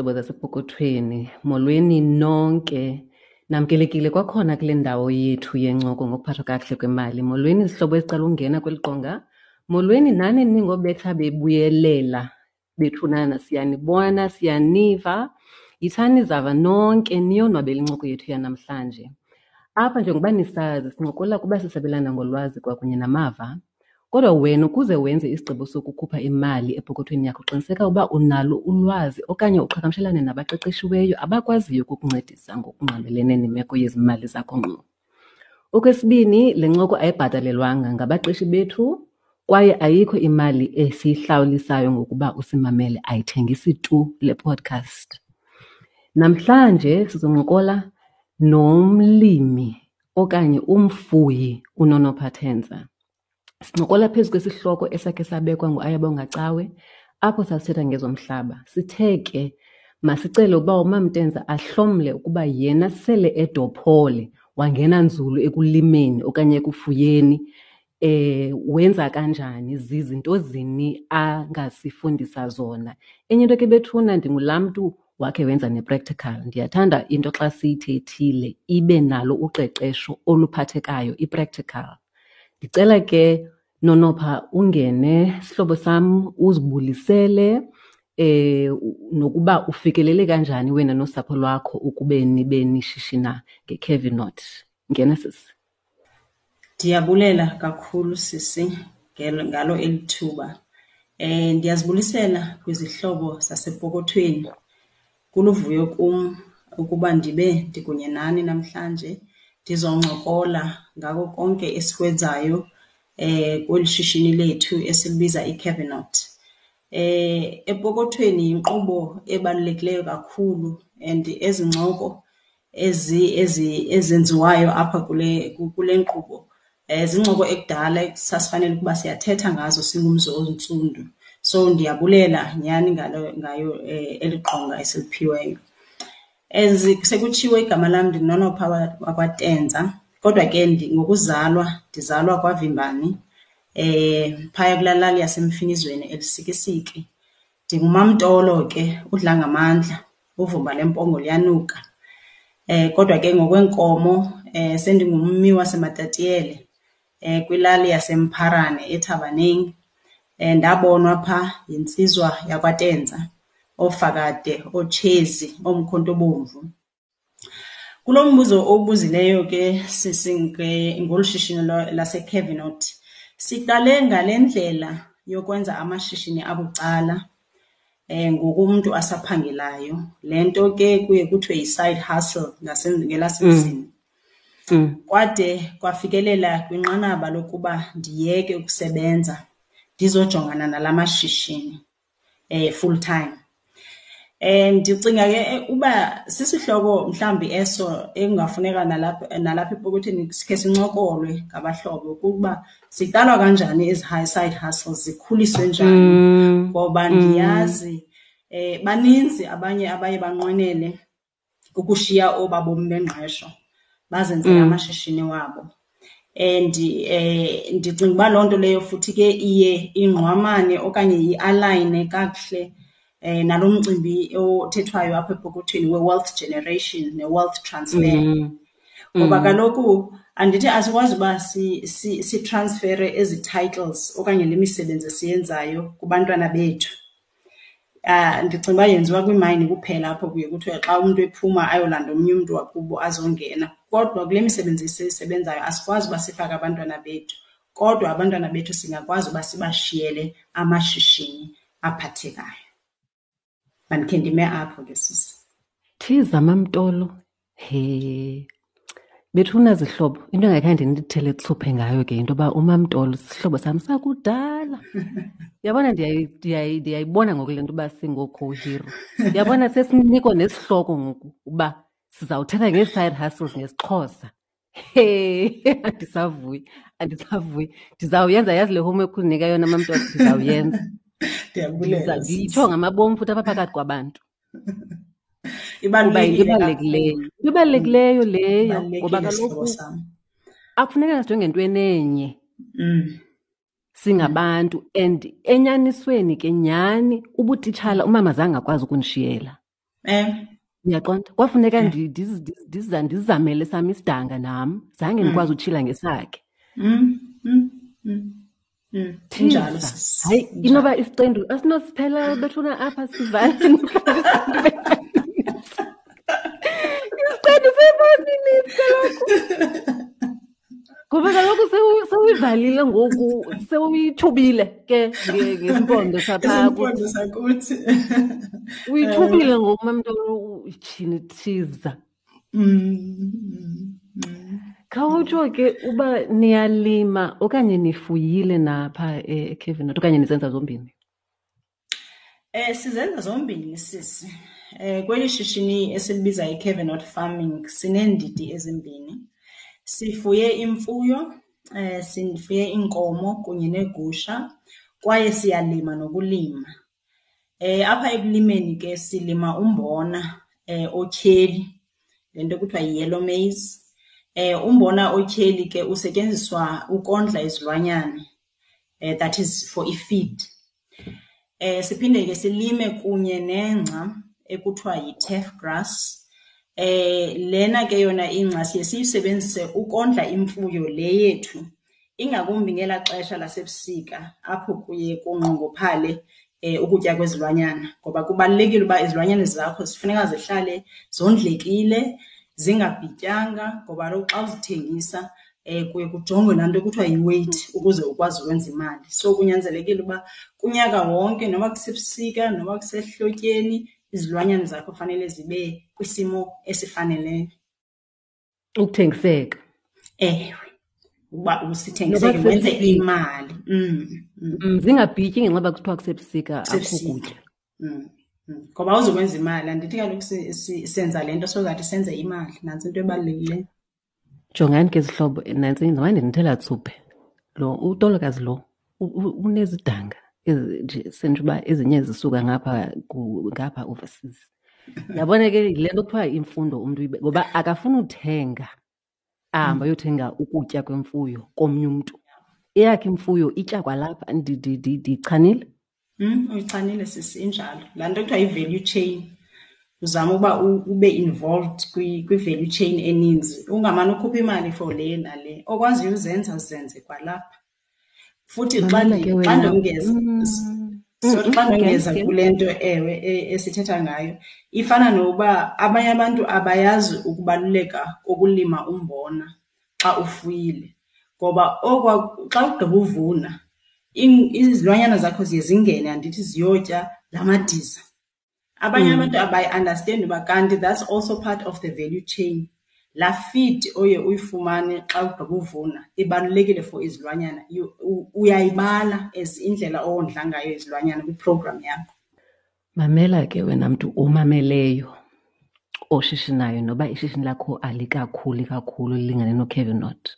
zihlobo zasepokothweni, molweni nonke. Namkelekile kwakhona kule ndawo yethu yencoko ngokuphathwa kakuhle kwemali. Molweni zihlobo ezicela ungena kweli qonga. Molweni nani ningobetha bebuyelela bethunana, siyanibona, siyaniva. Yithani zava nonke niyonwabela incoko yethu yanamhlanje. Apha njengoba nisazi sincokola kuba sisabelana ngolwazi kwakunye namava. Kodwa wena ukuze wenze isigqibo sokukhupha imali epokothweni yakho qiniseka uba unalo ulwazi okanye uqhagamshelane nabaqeqeshiweyo abakwaziyo ukukuncedisa ngokungqamelene nemeko yezimali zakho ngqo. Okwesibini, le ncoko ayibhatalelwanga ngabaqeshi bethu kwaye ayikho imali esiyihlawulisayo ngokuba usimamele, ayithengisi tu le podcast. Namhlanje sizoncokola nomlimi okanye umfuyi uNonopha Tenza. Sincokola phezu kwesihloko esakhe sabekwa nguAyabonga Cawe apho sasithetha ngezomhlaba. Sithe ke masicele ukuba uMamTenza ahlomle ukuba yena sele edophole wangena nzulu ekulimeni okanye ekufuyeni, wenza kanjani, zizinto zini angasifundisa zona. Enye into ke bethuna, ndingulaa mntu wakhe wenza ne-practical. Ndiyathanda into xa siyithethile ibe nalo uqeqesho oluphathekayo, i-practical. Ndicela ke Nonopha ungene sihlobo sam uzibulisele nokuba ufikelele kanjani wena nosapho lwakho ukube nibe nishishina ngeCavinot. Ngena sisi. Ndiyabulela kakhulu sisi ngalo eli thuba. Ndiyazibulisela kwizihlobo zasepokothweni. Kuluvuyo kum ukuba ndibe ndikunye nani namhlanje ndizoncokola ngako konke esikwenzayo kweli shishini lethu esilibiza iCavinot. Epokothweni yinkqubo ebalulekileyo kakhulu and ezi ncoko ezenziwayo apha kule nkqubo zincoko ekudala sasifanele ukuba siyathetha ngazo singumzi ontsundu. So ndiyabulela nyhani ngayo eli qonga esiliphiweyo. As sekutshiwo igama lam ndinguNonopha wakwaTenza, kodwa ke ngokuzalwa ndizalwa kwaVimbani, phaya kulaa lali yaseMfinizweni eLusikisiki. NdinguMamTolo ke, udla ngamandla, uvumba lempongo liyanuka. Kodwa ke ngokweenkomo sendingummi waseMatatiyele, kwilali yaseMpharane eThabaneng. Ndabonwa phaa yintsizwa yakwaTenza, oofakade, ootshezi, oomkhonto obomvu. Kulo mbuzo owubuzileyo ke sisi ngolu shishini laseCavinot, siqale ngale ndlela yokwenza amashishini abucala ngoku umntu asaphangelayo. Le nto ke kuye kuthiwe yi-side hustle ngelasemzini. Kwade kwafikelela kwinqanaba lokuba ndiyeke ukusebenza ndizojongana nala mashishini full time. Ndicinga ke uba sisihloko mhlawumbi eso ekungafuneka nalapha epokothweni sikhe sincokolwe ngabahlobo ukuba ziqalwa kanjani ezi high side hustles, zikhuliswe njani. Ngoba ndiyazi baninzi abanye abaye banqwenele ukushiya oba bomi bengqesho bazenzele amashishini wabo. And ndicinga uba loo nto leyo futhi ke iye ingqwamane okanye i-alayine kakuhle nalo mcimbi othethwayo apha epokothweni we-wealth generation ne-wealth transfer. Ngoba kaloku andithi asikwazi uba sitransfere ezi titles okanye le misebenzi esiyenzayo kubantwana bethu. Ndicinga uba yenziwa kwiimayini kuphela apho kuye kuthiwe xa umntu ephuma ayolanda omnye umntu wakubo azongena. Kodwa kule misebenzi esiyisebenzayo asikwazi uba sifake abantwana bethu, kodwa abantwana bethu singakwazi uba sibashiyele amashishini aphathekayo. Mandikhe ndime apho ke sisi. Thiza MamTolo, he. Bethuna zihlobo, into engakhange ndithele tsuphe ngayo ke into yoba uMamTolo sisihlobo sam sakudala. Uyabona ndiyayibona ngoku le nto uba singoo-co-hero. Uyabona sesinikwa nesihloko ngoku uba sizawuthetha ngee-side hustles ngesiXhosa. He, andisavuyi, andisavuyi. Ndizawuyenza, yazi le homework undinika yona MamTolo, ndizawuyenza. Ndiyabulela, Ndiyitsho ngamabom futhi apha phakathi kwabantu. Ibalulekile Kuba yinto ebalulekileyo. kakhulu. Into ebalulekileyo leyo, Ibalulekile ngoba kaloku sihlobo sam. akufuneka sijonge entweni enye. Singabantu and enyanisweni ke nyhani ubutitshala umama zange akwazi ukundishiyela. Uyaqonda? Kwafuneka ndizamele sam isidanga nam, zange ndikwazi utshila ngesakhe. Injalo. Hayi, inoba isiqendu asinosiphela bethuna apha sivale. Isiqendu seyi-5 minutes kaloku. Ngoba kaloku sewuyivalile ngoku, sewuyithubile ke ngesimpondo sapha. Isimpondo sakuthi. Uyithubile ngoku mamntolo, tyhini thiza. Khawutsho ke uba niyalima okanye nifuyile napha eKevenot okanye nizenza zombini? Sizenza zombini sisi. Kweli shishini esilibiza iKevenot Farming sineendidi ezimbini. Sifuye imfuyo, sifuye iinkomo kunye neegusha kwaye siyalima nokulima. Apha ekulimeni ke silima umbona otyheli, le nto kuthiwa yi-yellow maize. Umbona otyheli ke usetyenziswa ukondla izilwanyana, that is for i-feed. Siphinde ke silime kunye nengca ekuthiwa yi-turf grass. Lena ke yona ingca siye siyisebenzise ukondla imfuyo le yethu, ingakumbi ngelaa xesha lasebusika apho kuye kunqongophale ukutya kwezilwanyana, ngoba kubalulekile uba izilwanyana zakho zifuneka zihlale zondlekile, zingabhityanga, ngoba kaloku xa uzithengisa kuye kujongwe laa nto kuthiwa yi-weight ukuze ukwazi ukwenza imali. So kunyanzelekile uba kunyaka wonke, noba kusebusika noba kusehlotyeni, izilwanyana zakho fanele zibe kwisimo esifaneleyo. Ukuthengiseka. Ewe, uba usithengiseke wenze imali. Zingabhityi ngenxa yoba kuthiwa kusebusika akukho kutya. Ngoba awuzukwenza imali, andithi kaloku senza le nto so that senze imali, nantsi into ebalulekileyo. Jongani ke zihlobo, nantsi ndimane ndinithela tsuphe. Lo utolokazi lo unezidanga nje sentsho uba ezinye zisuka ngapha ngapha overseas. Yabona ke yile nto kuthiwa imfundo umntu uyibe, ngoba akafuni uthenga, ahambe ayothenga ukutya kwemfuyo komnye umntu. Eyakhe imfuyo itya kwalapha. Ndichanile? Uyichanile sisi, injalo. Laa nto kuthiwa yi-value chain. Uzama uba ube involved kwi-value chain eninzi, ungamane ukhupha imali for le nale. Okwaziyo uzenza zenze kwalapha. Futhi Mamela ke xa wena. ndongeza, sorry, xa ndongeza kule nto ewe esithetha ngayo, ifana nokuba abanye abantu abayazi ukubaluleka kokulima umbona xa ufuyile. Ngoba xa ugqiba uvuna, izilwanyana zakho ziye zingene, andithi ziyotya la madiza. Abanye abantu abayi-understand uba kanti that's also part of the value chain. Laa feed oye uyifumane xa ugqiba uvuna ibalulekile for izilwanyana. Uyayibala as indlela owondla ngayo izilwanyana kwi-program yakho. Mamela ke wena mntu omameleyo oshishinayo, noba ishishini lakho alikakhuli kakhulu lilingane noKevenot.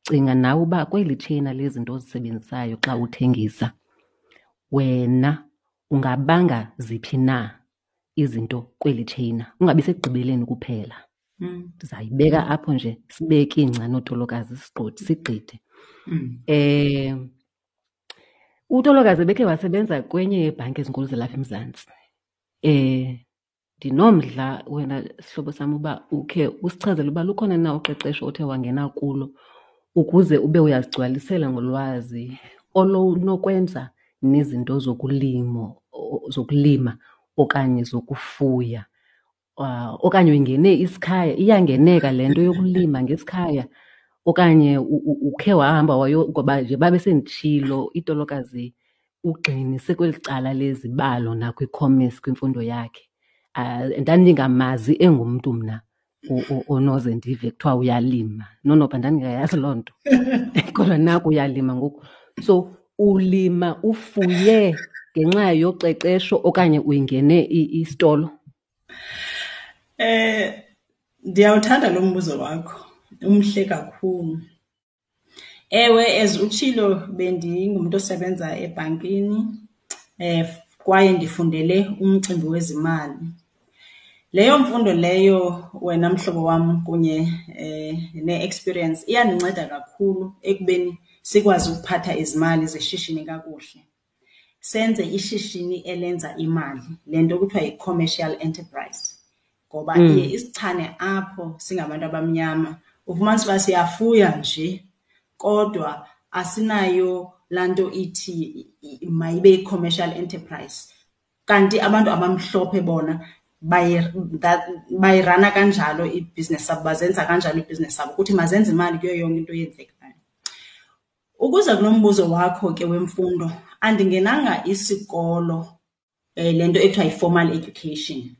Cinga nawe uba kweli tsheyina lezinto ozisebenzisayo xa uthengisa, wena ungabanga ziphi na izinto kweli tsheyina, ungabi sekugqibeleni kuphela. Ndizayibeka apho nje, sibeke ingca nootolokazi sigqithe. Utolokazi ebekhe wasebenza kwenye yeebhanki ezinkulu zalapha eMzantsi. Ndinomdla wena sihlobo sam uba ukhe usichazele uba lukhona na uqeqesho othe wangena kulo ukuze ube uyazigcwalisela ngolwazi olunokwenza nezinto zokulima okanye zokufuya. Okanye uyingene isikhaya, iyangeneka le nto yokulima ngesikhaya, okanye ukhe wahamba wayo, ngoba nje babe senditshilo itolokazi ugxinise kweli cala lezibalo nakwi-commerce kwimfundo yakhe. Ndandingamazi engumntu mna onoze ndive kuthiwa uyalima. Nonoba ndandingayazi loo nto. Kodwa naku uyalima ngoku. So ulima ufuye ngenxa yoqeqesho okanye uyingene isitolo? Ndiyawuthanda lo mbuzo wakho, umhle kakhulu. Ewe, as utshilo bendingumntu osebenza ebhankini, kwaye ndifundele umcimbi wezimali. Leyo mfundo leyo wena mhlobo wam kunye ne-experience iyandinceda kakhulu ekubeni sikwazi ukuphatha izimali zeshishini kakuhle. senze ishishini elenza imali, le nto kuthiwa yi-commercial enterprise. Ngoba iye isichane apho singabantu abamnyama, ufumanisa uba siyafuya nje kodwa asinayo laa nto ithi mayibe yi-commercial enterprise. Kanti abantu abamhlophe bona bayirana kanjalo ibhizinesi yabo, bazenza kanjalo ibhizinesi yabo, ukuthi mazenze imali kuyo yonke into eyenzekayo. Ukuza kulo mbuzo wakho ke wemfundo, andingenanga isikolo, le nto ekuthiwa yi-formal education.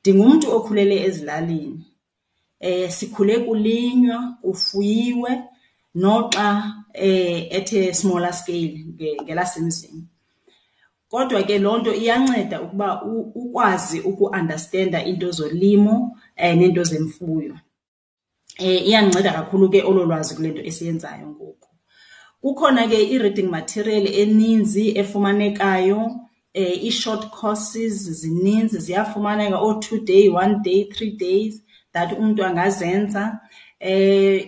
Ndingumntu okhulele ezilalini. Sikhule kulinywa, kufuyiwe, noxa at a smaller scale ngelasemzini. Kodwa ke loo nto iyanceda ukuba ukwazi uku-understanda iinto zolimo neento zemfuyo. Iyandinceda kakhulu ke olo lwazi kule nto esiyenzayo ngoku. Kukhona ke i-reading material eninzi efumanekayo, ii-short courses zininzi ziyafumaneka, oo-2 day, 1 day, 3 days that umntu angazenza.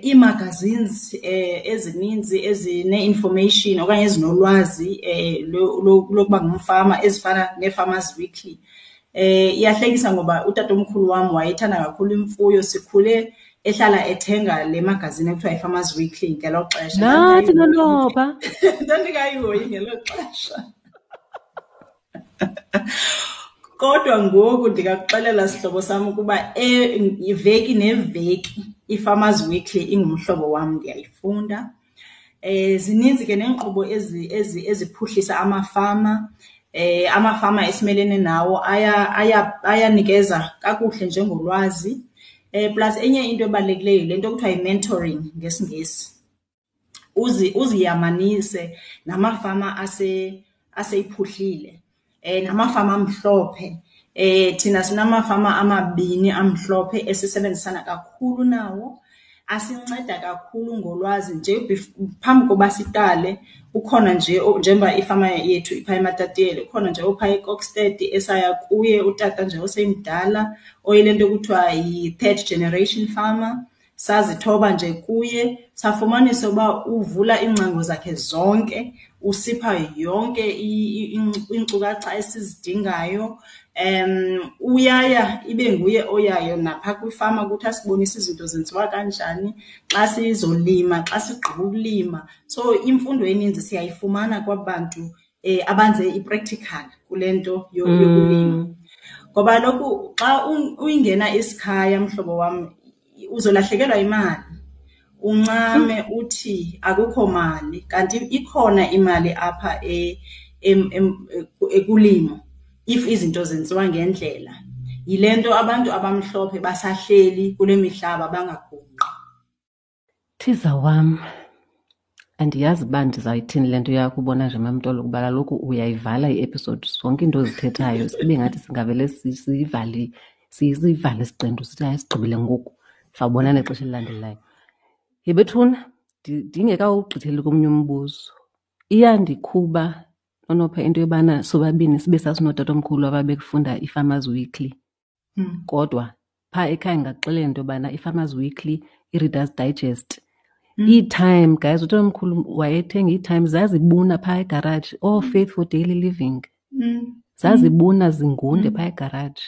Ii-magazines ezininzi ezine-information okanye ezinolwazi lokuba ngumfama ezifana nee-Farmers Weekly. Iyahlekisa ngoba utatomkhulu wam wayethanda kakhulu imfuyo, sikhule ehlala ethenga le magazine ekuthiwa yi-Farmers Weekly ngelo xesha. Nathi nonopha. Ndandingayihoyi ngelo xesha. Kodwa ngoku ndingakuxelela sihlobo sam ukuba iveki neveki i-Farmers Weekly ingumhlobo wam, ndiyayifunda. Zininzi ke neenkqubo eziphuhlisa amafama. Amafama esimelene nawo ayanikeza kakuhle njengolwazi. Plus enye into ebalulekileyo yile nto kuthiwa yi-mentoring ngesiNgesi. Uziyamanise namafama aseyiphuhlile, namafama amhlophe. Thina sinamafama amabini amhlophe esisebenzisana kakhulu nawo, asinceda kakhulu ngolwazi nje phambi koba siqale. Ukhona nje njengoba ifama yethu ipha eMatatiele, ukhona nje opha eKokstad esaya kuye, utata nje osemdala oyile nto kuthiwa yi-third generation farmer. Sazithoba nje kuye, safumanisa uba uvula iingcango zakhe zonke, usipha yonke iinkcukacha esizidingayo. Uyaya ibe nguye oyayo napha kwifama ukuthi asibonise izinto zenziwa kanjani xa sizolima, xa sigqiba ukulima. So imfundo eninzi siyayifumana kwaba bantu abanze i-practical kule nto yokulima. Ngoba kaloku xa uyingena isikhaya, mhlobo wam, uzolahlekelwa imali. Uncame uthi akukho mali, kanti ikhona imali apha ekulimo if izinto zenziwa ngendlela. Yile nto abantu abamhlophe basahleli kule mihlaba bangagungqi. Thiza wam, andiyazi uba ndizayithini le nto yakho ubona nje Mamtolo, kuba kaloku uyayivala i-episode, zonke iinto ozithethayo sibe ngathi singavele siyivale isiqendu sithi hayi sigqibile ngoku, sawubonana ixesha elilandelayo. Yhe bethuna, ndingekawugqitheli komnye umbuzo, iyandikhuba Nonopha into yobana sobabini sibe sasinootatomkhulu ababekufunda iFarmers Weekly. Kodwa phaa ekhaya ndingakuxelela into yobana iFarmers Weekly, iReader's Digest, iTime, guys, utatomkhulu wayethenga iTime, zazibuna phaa egaraji, ooFaith for Daily Living. Zazibuna zingunde phaa egaraji.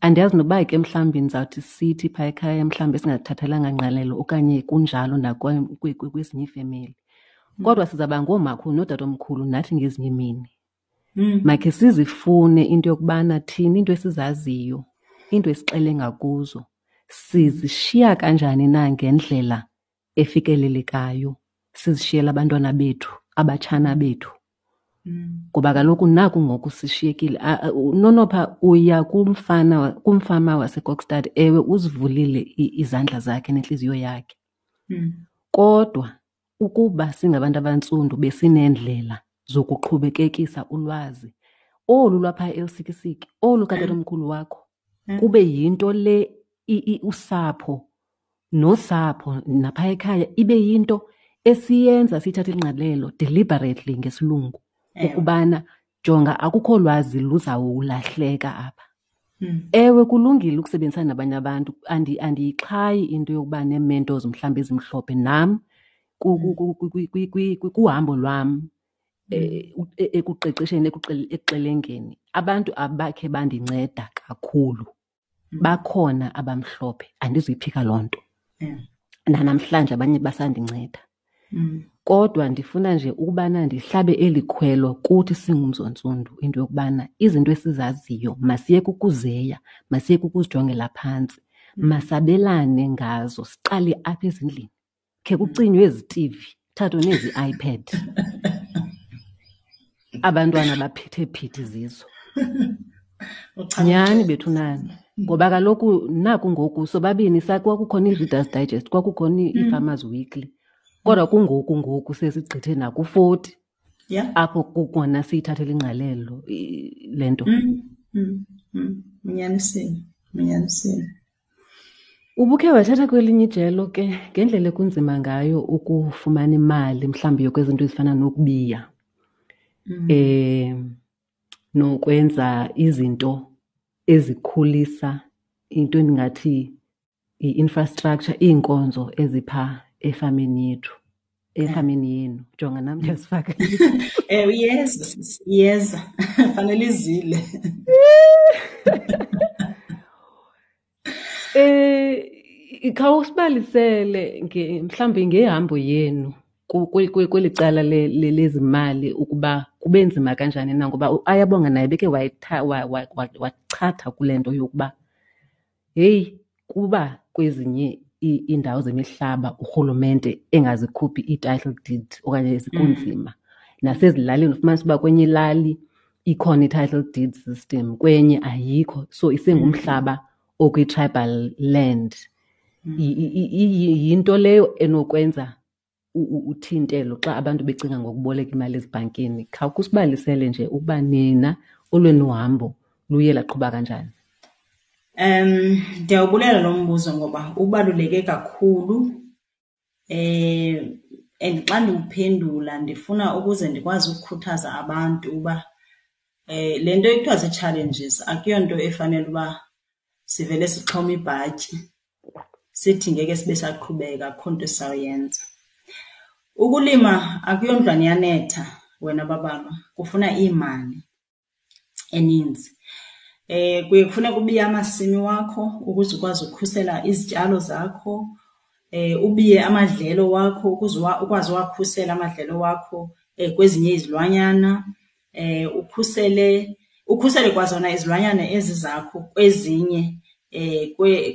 Andiyazi noba ke mhlawumbi ndizawuthi sithi phaa ekhaya mhlawumbi esingazithathelanga ngqalelo okanye kunjalo kwezinye iifemeli. Kodwa sizawuba ngoomakhulu nootatomkhulu nathi ngezinye iimini. Makhe sizifune into yokubana thina into esizaziyo, into esixele ngakuzo, sizishiya kanjani na ngendlela efikelelekayo, sizishiyele abantwana bethu, abatshana bethu. Ngoba kaloku naku ngoku sishiyekile. Nonopha uya kumfama waseKokstad, ewe uzivulile izandla zakhe nentliziyo yakhe. Kodwa ukuba singabantu abantsundu besineendlela zokuqhubekekisa ulwazi olu lwapha eLusikisiki, olu katatomkhulu wakho, kube yinto le usapho nosapho napha ekhaya ibe yinto esiyenza siyithathe ingqalelo deliberately ngesilungu, ukubana jonga akukho lwazi luzawulahleka apha. Ewe, kulungile ukusebenzisana nabanye abantu, andiyixhayi into yokuba nee-mentors mhlawumbi ezimhlophe. Nam kuhambo lwam Ekuqeqesheni, ekuxelengeni, abantu abakhe bandinceda kakhulu bakhona abamhlophe, andizuyiphika loo nto. Nanamhlanje abanye basandinceda. Kodwa ndifuna nje ukubana ndihlabe eli khwelo kuthi singumzi ontsundu, into yokubana izinto esizaziyo masiyeke ukuzeya, masiyeke ukuzijongela phantsi, masabelane ngazo, siqale apha ezindlini. Khe kucinywe ezi TV, kuthathwe nezi iPad. Abantwana baphethe phithi zizo. Nyhani bethu nani. Ngoba kaloku naku ngoku sobabini kwakukhona i-Reader's Digest, kwakukhona i-Farmers Weekly. Kodwa kungoku ngoku sesigqithe naku-40. Apho kukona siyithathela ingqalelo le nto. Unyanisile, unyanisile. Ubukhe wathatha kwelinye ijelo ke ngendlela ekunzima ngayo ukufumana imali mhlawumbi yokwezinto ezifana nokubiya. Nokwenza izinto ezikhulisa into endingathi i-infrastructure, iinkonzo ezipha efameni yethu, efameni yenu. Jonga nam ndiyazifaka. Ewe, iyeza sisi, iyeza. Fanele izile. Khawusibalisele mhlawumbi ngehambo yenu kweli cala lezimali ukuba kube nzima kanjani na, ngoba uAyabonga naye beke wachatha kule nto yokuba heyi, kuba kwezinye iindawo zemihlaba urhulumente engazikhuphi ii-title deed okanye zikunzima. Nasezilalini ufumanisa uba kwenye ilali ikhona i-title deed system, kwenye ayikho. So isengumhlaba okwi-tribal land. Yinto leyo enokwenza uthintelo xa abantu becinga ngokuboleka imali ezibhankini. Khawukusibalisele nje ukuba nina olwenu hambo luye laqhuba kanjani. Ndiyawubulela lo mbuzo ngoba ubaluleke kakhulu. And xa ndiwuphendula ndifuna ukuze ndikwazi ukukhuthaza abantu uba le nto ekuthiwa zii-challenges akuyonto efanele uba sivele sixhome ibhatyi sithi ngeke sibe saqhubeka, akukho nto esizawuyenza. Ukulima akuyondlwane iyanetha wena babama, kufuna iimali eninzi. Kuye kufuneke ubiye amasimi wakho ukuze ukwazi ukukhusela izityalo zakho, ubiye amadlelo wakho ukuze ukwazi uwakhusela amadlelo wakho kwezinye izilwanyana, ukhusele kwazona izilwanyana ezi zakho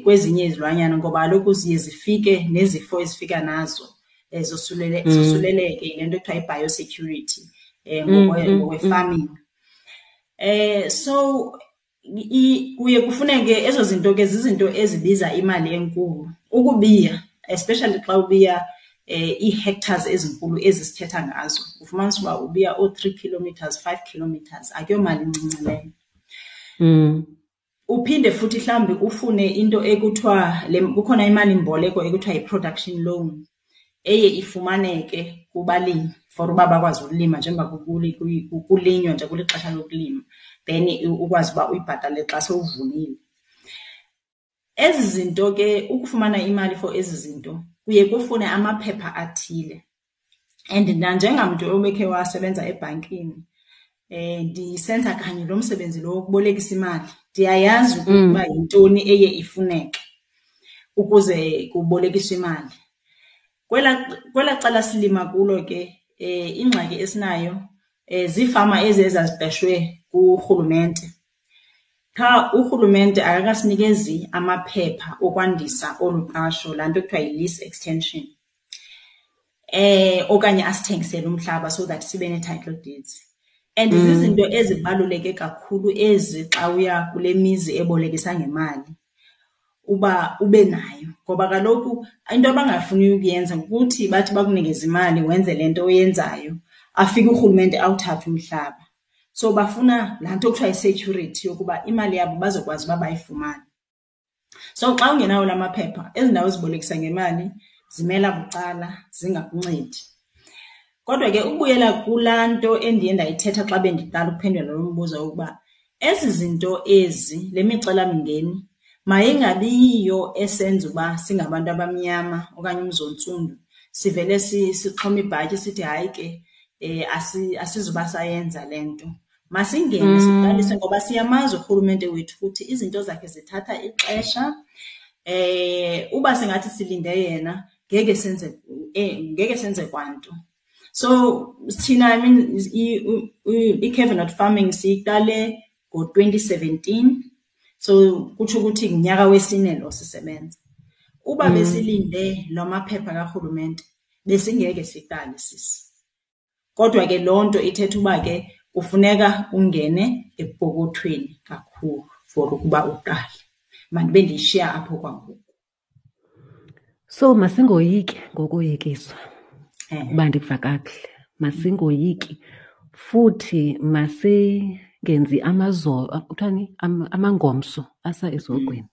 kwezinye izilwanyana, ngoba kaloku ziye zifike nezifo ezifika nazo, zosuleleke, yile nto ekuthiwa yi-biosecurity, ngokwe-farming. So kuye kufuneke ezo zinto ke zizinto ezibiza imali enkulu. Ukubiya, especially xa ubiya ii-hectares ezinkulu ezi sithetha ngazo, ufumanisa uba ubiya oo-3 kilometers, 5 kilometers, akuyomali incinci leyo. Uphinde futhi mhlawumbi ufune into ekuthiwa le, kukhona imalimboleko ekuthiwa yi-production loan eye ifumaneke kubalimi for uba bakwazi ukulima njengoba kulinywa nje kulixesha lokulima, then ukwazi uba uyibhatale xa sewuvunile. Ezi zinto ke, ukufumana imali for ezi zinto kuye kufune amaphepha athile. And nanjengamntu obekhe wasebenza ebhankini, ndisenza kanye lo msebenzi lo wokubolekisa imali, ndiyayazi ukuba yintoni eye ifuneke ukuze kubolekiswe imali. Kwela cala silima kulo ke, ingxaki esinayo, ziifama ezi ezaziqeshwe kurhulumente. Qha urhulumente akakasinikezi amaphepha okwandisa olu qasho, laa nto kuthiwa yi-lease extension, okanye asithengisele umhlaba so that sibe nee-title deeds. And zizinto ezibaluleke kakhulu ezi xa uya kule mizi ebolekisa ngemali uba ube nayo, ngoba kaloku into abangafuni ukuyenza kukuthi bathi bakunikeze imali wenze le nto oyenzayo, afike urhulumente awuthathe umhlaba. So bafuna laa nto kuthiwa yi-security yokuba imali yabo bazokwazi uba bayifumane. So xa ungenawo la maphepha, ezi ndawo zibolekisa ngemali zimela bucala, zingakuncedi. Kodwa ke ukubuyela kulaa nto endiye ndayithetha xa bendiqala ukuphendula lo mbuzo wokuba ezi zinto ezi, le micelamingeni, mayingabi yiyo esenza uba singabantu abamnyama okanye umzi ontsundu sivele sixhome ibhatyi sithi hayi ke, Asizuba sayenza le nto. Masingene siqalise ngoba siyamazi urhulumente wethu ukuthi izinto zakhe zithatha ixesha. Uba singathi silinde yena ngeke senze, ngeke senze kwanto. So thina, I mean, i-Cavenot Farming siyiqale ngo-2017. So kutsho ukuthi ngunyaka wesine lo sisebenza. Uba besilinde la maphepha karhulumente besingeke siqale sisi. Kodwa ke loo nto ithetha uba ke kufuneka ungene epokothweni kakhulu for ukuba uqale. Mandibe ndiyishiya apho kwangoku. So masingoyiki ngokoyikiswa, uba ndikuva kakuhle. Masingoyiki futhi masingenzi amazolo, kuthiwani, amangomso asa esihogweni.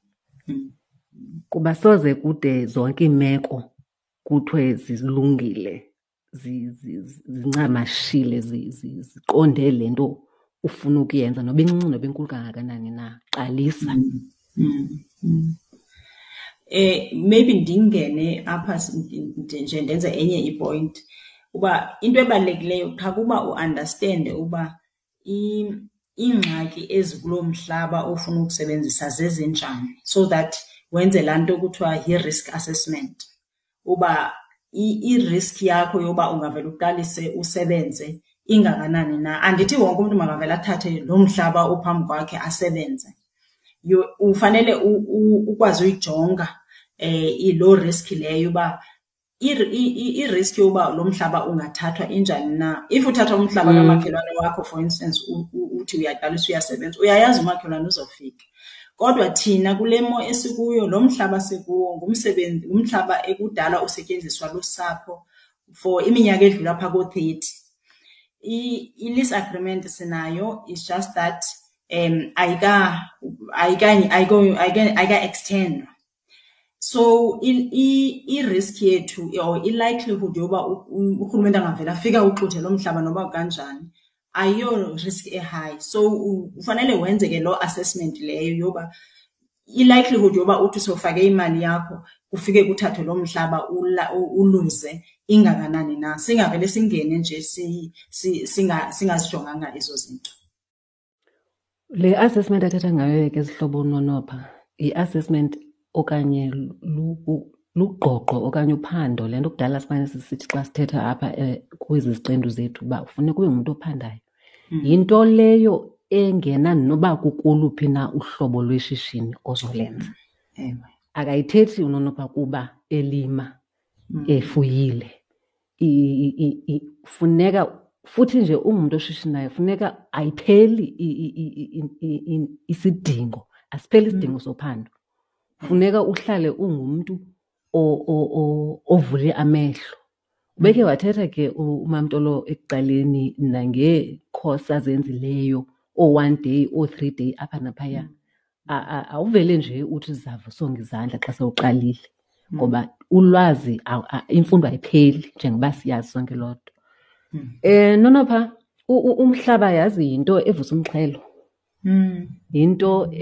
Kuba soze kude zonke iimeko kuthiwe zilungile, zincamashile, ziqonde le nto ufuna ukuyenza, noba incinci noba inkulu kangakanani na. Qalisa. Maybe ndingene apha nje ndenze enye ipoint uba into ebalulekileyo qha kuba u-understande uba iingxaki ezikuloo mhlaba ofuna ukusebenzisa zezinjani, so that wenze laa nto kuthiwa yi-risk assessment, uba i-risk yakho yoba ungavele uqalise usebenze ingakanani na. Andithi wonke umntu makavele athathe loo mhlaba ophambi kwakhe asebenze. Ufanele ukwazi uyijonga loo risk leyo uba i-risk yoba lo mhlaba ungathathwa injani na. If uthatha umhlaba kamakhelwane wakho, for instance, uthi uyaqalisa uyasebenza, uyayazi umakhelwane uzofika. Kodwa thina kule mo esikuyo, lo mhlaba sikuwo ngumhlaba ekudala usetyenziswa lusapho for iminyaka edlula phaa koo-30. I-lease agreement sinayo, it's just that ayika-extendwa. So i-risk yethu or i-likelihood yoba urhulumente angavele afike awuxuthe lo mhlaba noba kanjani ayiyo risk e-high. So ufanele wenze ke loo assessment leyo yoba i-likelihood yoba uthi sowufake imali yakho kufike kuthathwe lo mhlaba uluze ingakanani na. Singavele singene nje singazijonganga ezo zinto. Le assessment athetha ngayo ke zihlobo uNonopha yi-assessment okanye lugqogqo okanye uphando, le nto kudala simane sisithi xa sithetha apha kwezi ziqendu zethu uba kufuneka ube ngumntu ophandayo. Yinto leyo engena noba kukoluphi na uhlobo lweshishini ozolenza. Akayithethi uNonopha kuba elima, efuyile. Funeka futhi nje ungumntu oshishinayo funeka ayipheli isidingo, asipheli isidingo sophando. Funeka uhlale ungumntu ovule amehlo. Ubekhe wathetha ke uMamTolo ekuqaleni nangeekhosi azenzileyo, oo-one day, oo-3 day apha naphaya. Awuvele nje uthi zizawusonga izandla xa sewuqalile, ngoba ulwazi, imfundo ayipheli njengoba siyazi sonke loo nto. Nonopha, umhlaba yazi yinto evusa umxhelo. Yinto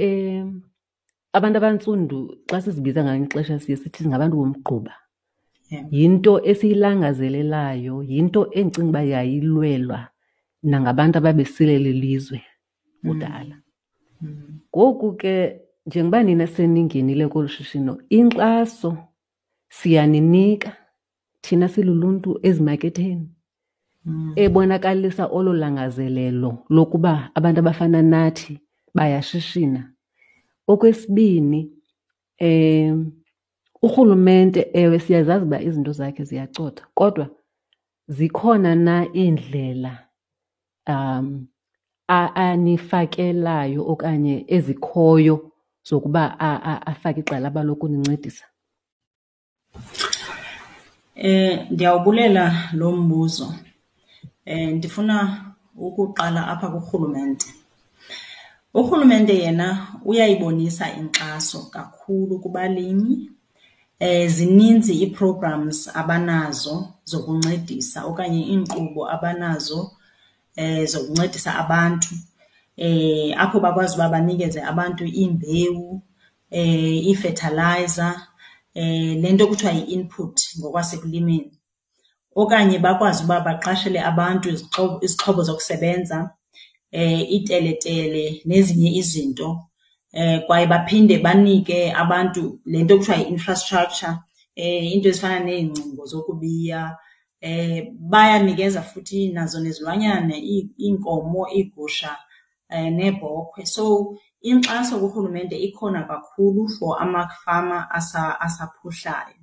abantu abantsundu xa sizibiza ngelinye ixesha siye sithi singabantu bomgquba. Yinto esiyilangazelelayo, yinto endicinga uba yayilwelwa nangabantu ababesilela ilizwe kudala. Ngoku ke njengoba nina seningenile kolu shishino, inkxaso siyaninika thina siluluntu ezimaketheni ebonakalisa olo langazelelo lokuba abantu abafana nathi bayashishina. Okwesibini, urhulumente, ewe siyazazi uba izinto zakhe ziyacotha, kodwa zikhona na iindlela anifakelayo okanye ezikhoyo zokuba afake igxalaba lokunincedisa? Ndiyawubulela lo mbuzo. Ndifuna ukuqala apha kurhulumente. Urhulumente yena uyayibonisa inkxaso kakhulu kubalimi. Zininzi ii-programs abanazo zokuncedisa okanye iinkqubo abanazo zokuncedisa abantu, apho bakwazi uba banikeze abantu iimbewu, ii-fertilizer, le nto kuthiwa yi-input ngokwasekulimeni. Okanye bakwazi uba baqashele abantu izixhobo zokusebenza, iiteletele nezinye izinto. Kwaye baphinde banike abantu le nto kuthiwa yi-infrastructure, iinto ezifana neengcingo zokubiya. Bayanikeza futhi nazo nezilwanyana, iinkomo, iigusha neebhokhwe. So inkxaso kurhulumente ikhona kakhulu for amafama asaphuhlayo.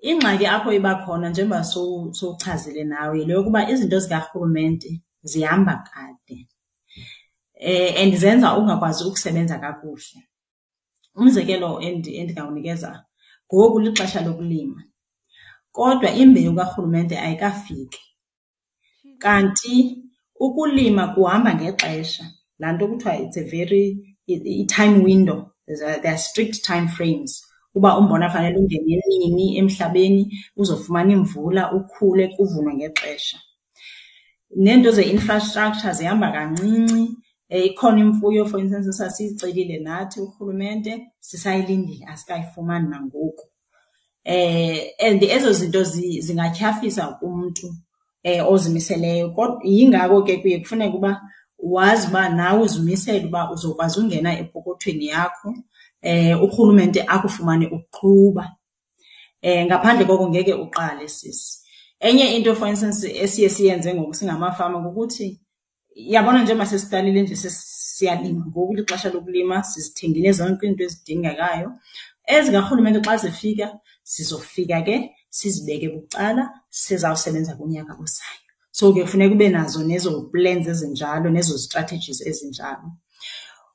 Ingxaki apho iba khona njengoba sowuchazile nawe yile yokuba izinto zikarhulumente zihamba kade and zenza ungakwazi ukusebenza kakuhle. Umzekelo endingawunikeza, ngoku lixesha lokulima kodwa imbewu karhulumente ayikafiki. Kanti ukulima kuhamba ngexesha, laa nto kuthiwa it's a very i-time window, there are strict time frames uba umbona fanele ungene nini emhlabeni uzofumana imvula ukhule kuvunwe ngexesha. Neento ze-infrastructure zihamba kancinci. Ikhona imfuyo for instance esasiyicelile nathi urhulumente, sisayilindile asikayifumani nangoku. And ezo zinto zingatyhafisa umntu ozimiseleyo. Kodwa yingako ke kuye kufuneke uba wazi uba nawe uzimisele uba uzokwazi ungena epokothweni yakho, urhulumente akufumane uqhuba. Ngaphandle koko ngeke uqale sisi. Enye into for instance esiye siyenze ngoku singamafama kukuthi, yabona njengoba sesiqalile nje siyalima ngoku lixesha lokulima, sizithengile zonke iinto ezidingekayo. Ezikarhulumente xa zifika sizofika ke sizibeke bucala sizawusebenza kunyaka ozayo. So ke kufuneka ube nazo nezo plans ezinjalo nezo strategies ezinjalo.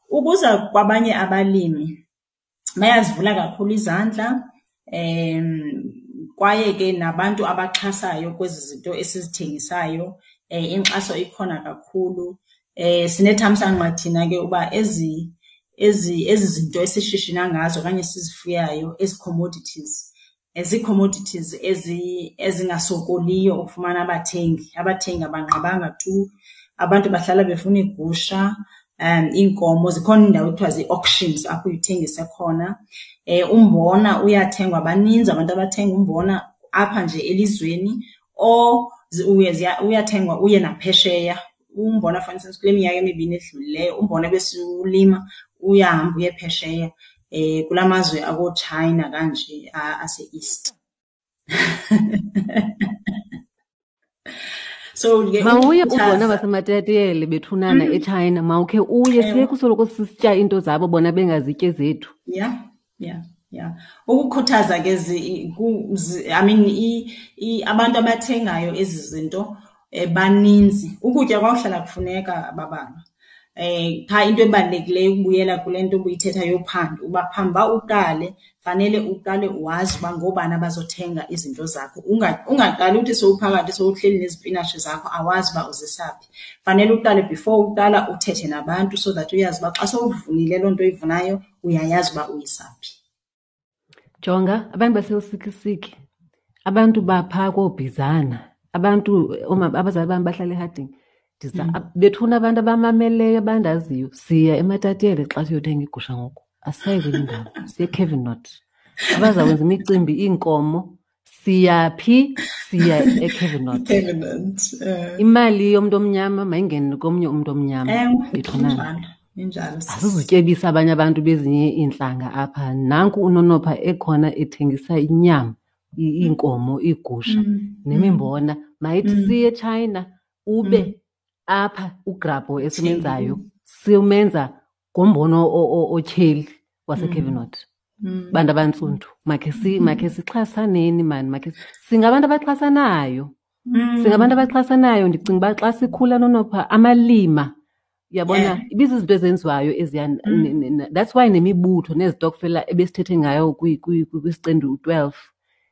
Ukuza kwabanye abalimi bayazivula kakhulu izandla, kwaye ke nabantu abaxhasayo kwezi zinto esizithengisayo, inkxaso ikhona kakhulu. Sinethamsanqa thina ke uba ezi zinto esishishina ngazo okanye esizifuyayo, ezi commodities, zii-commodities ezingasokoliyo ukufumana abathengi. Abathengi abanqabanga tu, abantu bahlala befuna iigusha, iinkomo. Zikhona iindawo ekuthiwa zii-auctions apho uye uthengise khona. Umbona uyathengwa, baninzi abantu abathenga umbona apha nje elizweni or uyathengwa uye naphesheya. Umbona for instance kule minyaka emibini edlulileyo umbona ebesiwulima uyahamba uye phesheya, kulaa mazwe akooChina kanje ase-East. So ke mawuye ukukhuthaza ubona baseMatatiele bethunana eChina, mawukhe uye, siye kusoloko sisitya iinto zabo bona bengazityi ezethu. Yeah, yeah, yeah. Ukukhuthaza ke zi, ku, zi, I mean, i, i, abantu abathengayo ezi zinto baninzi. Ukutya kwawuhlala kufuneka babalwa. Qha into ebalulekileyo ukubuyela kule nto ubuyithetha yophando, uba phambi uba uqale, fanele uqale wazi uba ngoobani abazothenga izinto zakho. Ungaqali uthi sowuphakathi sowuhleli nezipinatshi zakho awazi uba uzisaphi. Fanele uqale before uqala uthethe nabantu so that uyazi uba xa sowuvunile loo nto uyivunayo uyayazi uba uyisaphi. Jonga, abantu baseLusikisiki, abantu baphaa kooBhizana, abantu, abazali bam bahlala eHarding. Bethuna abantu abamameleyo abandaziyo, siya eMatatiele xa siyothenga igusha ngoku. Asisayi kwenye indawo, siye eCavern Knot. Abazakwenza imicimbi, iinkomo, siyaphi? Siya eCavern Knot. Cavern Knot, eh. Imali yomntu omnyama mayingene komnye umntu omnyama. Ewe, Bethunana. injalo, injalo. Asizutyebisa abanye abantu bezinye iintlanga apha. Nanku uNonopha ekhona ethengisa inyama, iinkomo, iigusha, nemimbona. Mayithi siye eChina, ube apha ugrabho esimenzayo, simenza ngombono otyheli waseCavern Knot. Bantu abantsundu, makhe sixhasaneni mani, makhe singabantu abaxhasanayo. Singabantu abaxhasanayo. Ndicinga uba xa sikhula Nonopha, amalima, uyabona, ibizizinto ezenziwayo eziya, that's why nemibutho nezitokfela ebesithethe ngayo kwisiqendu 12,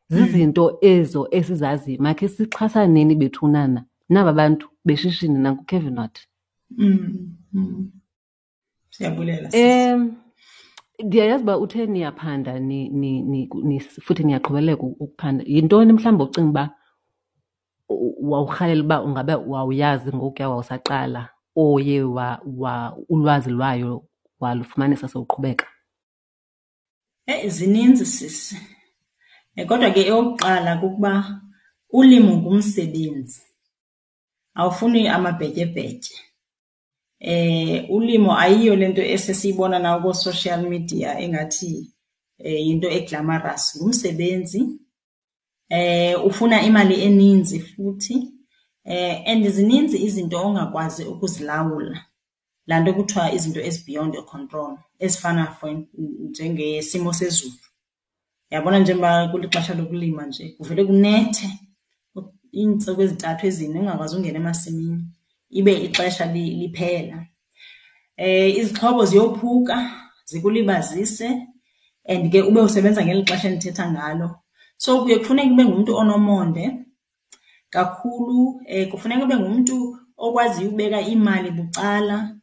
zizinto ezo esizaziyo. Makhe sixhasaneni bethunana naba bantu beshishini nankuCavern Knot. Siyabulela, sisi. Ndiyayazi uba uthe niyaphanda, futhi niyaqhubeleka ukuphanda. Yintoni mhlawumbi ocinga uba wawurhalela uba ungabe wawuyazi ngokuya wawusaqala, oye ulwazi lwayo walufumanisa sewuqhubeka? Zininzi sisi. Kodwa ke eyokuqala kukuba Ulimo ngumsebenzi, awufuni amabhetyebhetye. Ulimo ayiyo le nto esesiyibona nakoo-social media engathi yinto e-glamorous. Ngumsebenzi, ufuna imali eninzi futhi and zininzi izinto ongakwazi ukuzilawula, laa nto kuthiwa izinto ezi-beyond your control ezifana for njengesimo sezulu. Uyabona njengoba kulixesha lokulima nje kuvele kunethe iintsuku ezintathu ezine ungakwazi ungena emasimini ibe ixesha liphela. Izixhobo ziyophuka zikulibazise and ke ube usebenza ngeli xesha endithetha ngalo. So kuye kufuneke ube ngumntu onomonde kakhulu, kufuneka ube ngumntu okwaziyo ukubeka imali bucala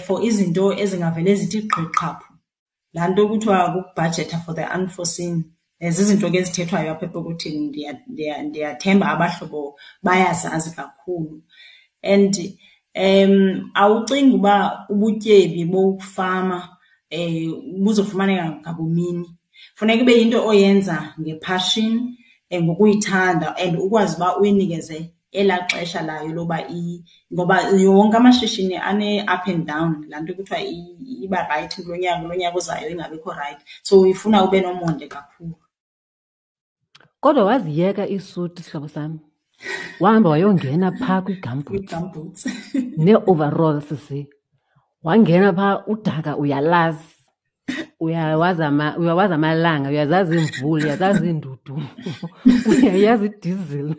for izinto ezingavele zithi gqi qhaphu. Laa nto kuthiwa kukubhajetha for the unforeseen. Zizinto ke ezithethwayo apha epokothini, ndiyathemba abahlobo bayazazi kakhulu. And awucingi uba ubutyebi bokufama buzofumaneka ngabumini. Funeka ibe yinto oyenza ngephashini, ngokuyithanda and ukwazi uba uyinikeze elaa xesha layo loba ngoba wonke amashishini ane-up and down, laa nto kuthiwa iba rayithi kulo nyaka, kulo nyaka uzayo ingabikho rayithi. So ifuna ube nomonde kakhulu. Kodwa waziyeka iisuti, sihlobo sami, wahamba wayongena phaa kwii-gumboots. Kwii-gumboots. Nee-overalls, sisi. Wangena phaa, udaka uyalazi. Uyawazi amalanga, uyazazi iimvula, uyazazi iindudumo, uyayazi idizili.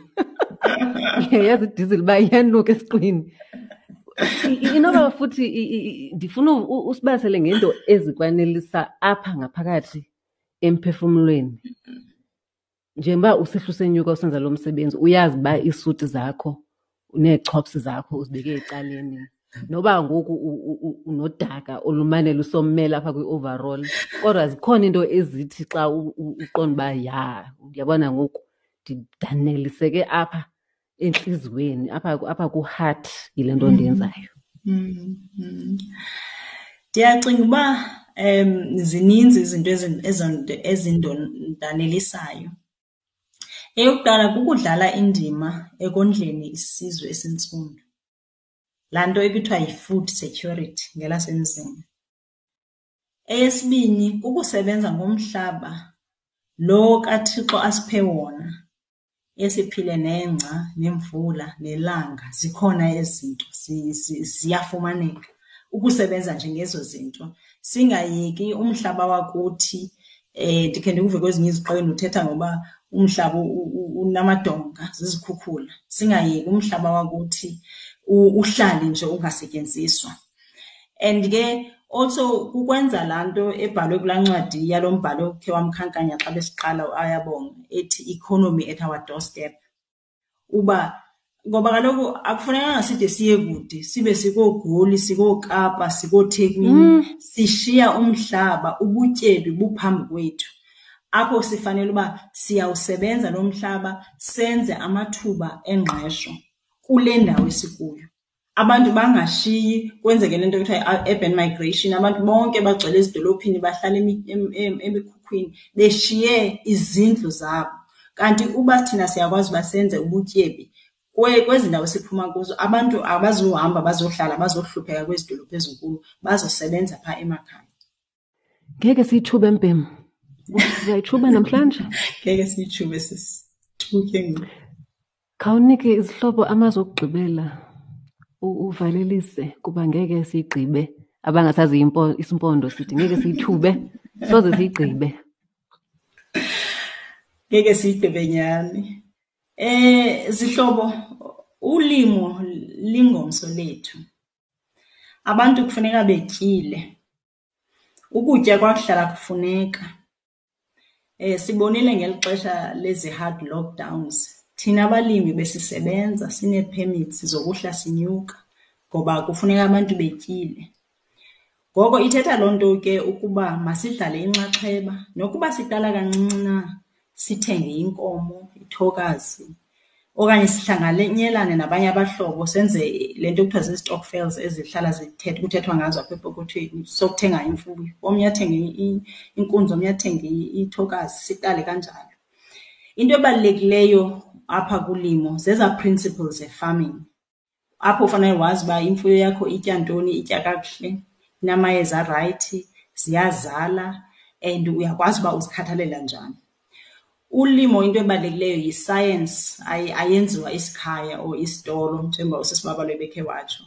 Uyayazi idizili uba iyanuka esiqwini. Inoba futhi ndifuna usibalisele ngento ezikwanelisa apha ngaphakathi emphefumlweni. Njengoba usihla usenyuka usenza lo msebenzi, uyazi uba iisuti zakho neechops zakho uzibeke ecaleni. Noba ngoku unodaka olumane lusomela apha kwi-overall, kodwa zikhona iinto ezithi xa uqonda uba ya, uyabona ngoku ndidaneliseke apha entliziyweni, apha ku-heart yile nto ndiyenzayo. Ndiyacinga uba zininzi izinto ezindondanelisayo. Eyokuqala kukudlala indima ekondleni isizwe esintsundu, laa nto ekuthiwa yi-food security ngelasemzini. Eyesibini kukusebenza ngomhlaba lo kaThixo asiphe wona, esiphile nengca nemvula nelanga, zikhona ezi zinto ziyafumaneka. Ukusebenza nje ngezo zinto, singayeki umhlaba wakuthi. Ndikhe ndikuve kwezinye iziqendu uthetha ngoba umhlaba unamadonga, zizikhukhula. Singayeki umhlaba wakuthi uhlale nje ungasetyenziswa. And ke also kukwenza laa nto ebhalwe kulaa ncwadi yalo mbhalo ukhe wamkhankanya xa besiqala uAyabonga, ethi Economy at Our Doorstep. Uba ngoba kaloku akufunekanga side siye kude, sibe sikooGoli, sikooKapa, sikooThekwini, sishiya umhlaba, ubutyebi buphambi kwethu. Apho sifanele uba siyawusebenza lo mhlaba, senze amathuba engqesho kule ndawo esikuyo. Abantu bangashiyi, kwenzeke le nto kuthiwa yi-urban migration, abantu bonke bagcwele ezidolophini, bahlala emikhukhwini, beshiye izindlu zabo. Kanti uba thina siyakwazi uba senze ubutyebi kwezi ndawo siphuma kuzo, abantu abazuhamba bazohlala, bazohlupheka kwezi dolophu ezinkulu, bazosebenza phaa emakhaya. Ngeke siyitshube, Mbhem. Sizayitshuba namhlanje? Ngeke siyitshube, sisi. Thuke ngoku. Khawunike izihlobo amazwi okugqibela, uvalelise, kuba ngeke siyigqibe. Abangasazi isimpondo sithi ngeke siyithube, soze siyigqibe. Ngeke siyigqibe nyhani. Zihlobo, ulimo lingomso lethu. Abantu kufuneka betyile. Ukutya kwakuhlala kufuneka. Sibonile ngeli xesha lezi hard lockdowns, thina abalimi besisebenza sinee-permits zokuhla sinyuka ngoba kufuneka abantu betyile. Ngoko ithetha loo nto ke ukuba masidlale inxaxheba, nokuba siqala kancinci na, sithenge inkomo, ithokazi, okanye sihlanganyelane nabanye abahlobo senze le nto kuthiwa zii-stokvels ezihlala kuthethwa ngazo apha epokothweni, sokuthenga imfuyo. Omnye athenge inkunzi, omnye athenge ithokazi, siqale kanjalo. Into ebalulekileyo apha kulimo zezaa principles ze-farming, apho ufanele wazi uba imfuyo yakho itya ntoni, itya kakuhle, inamayeza arayithi, ziyazala and uyakwazi uba uzikhathalela njani. Ulimo into ebalulekileyo yi-science, ayenziwa isikhaya or isitolo njengoba usisi Babalwa ebekhe watsho.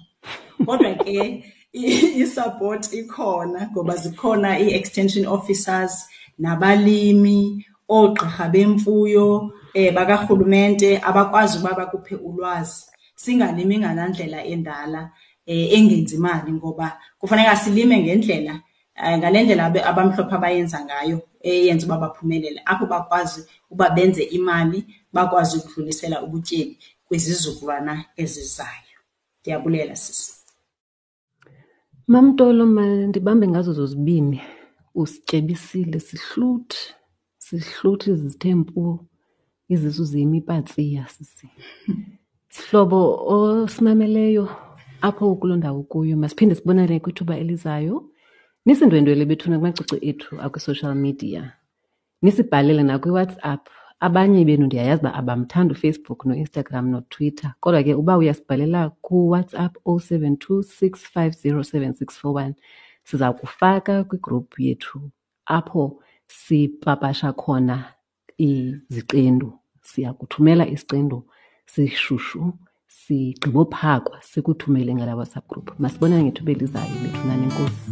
Kodwa ke i-support ikhona ngoba zikhona ii-extension officers nabalimi, oogqirha bemfuyo bakarhulumente abakwazi uba bakuphe ulwazi. Singalimi ngalaa ndlela endala engenzi mali ngoba kufuneka silime ngendlela, ngale ndlela abamhlophe abayenza ngayo eyenza uba baphumelele, apho bakwazi uba benze imali, bakwazi ukudlulisela ubutyebi kwizizukulwana ezizayo. Ndiyabulela, sisi. MamTolo, mandibambe ngazo zozibini. Usityebisile, sihluthi, sihluthi zithe mpu, izisu ziyimipatsiya sisi. Sihlobo osimameleyo apho kuloo ndawo kuyo, masiphinde sibonane kwithuba elizayo. Nisindwendwele bethuna kumacici ethu akwi-social media. Nisibhalele nakwiWhatsApp. Abanye benu ndiyayazi uba abamthandi uFacebook noInstagram noTwitter, kodwa ke uba uyasibhalela kuWhatsApp 072 650 7641 siza kufaka kwigruphu yethu apho sipapasha khona iziqendu. Siya kuthumela isiqendu sishushu sigqibophakwa sikuthumele ngala WhatsApp group. Masibonane ngethuba elizayo bethunani, enkosi.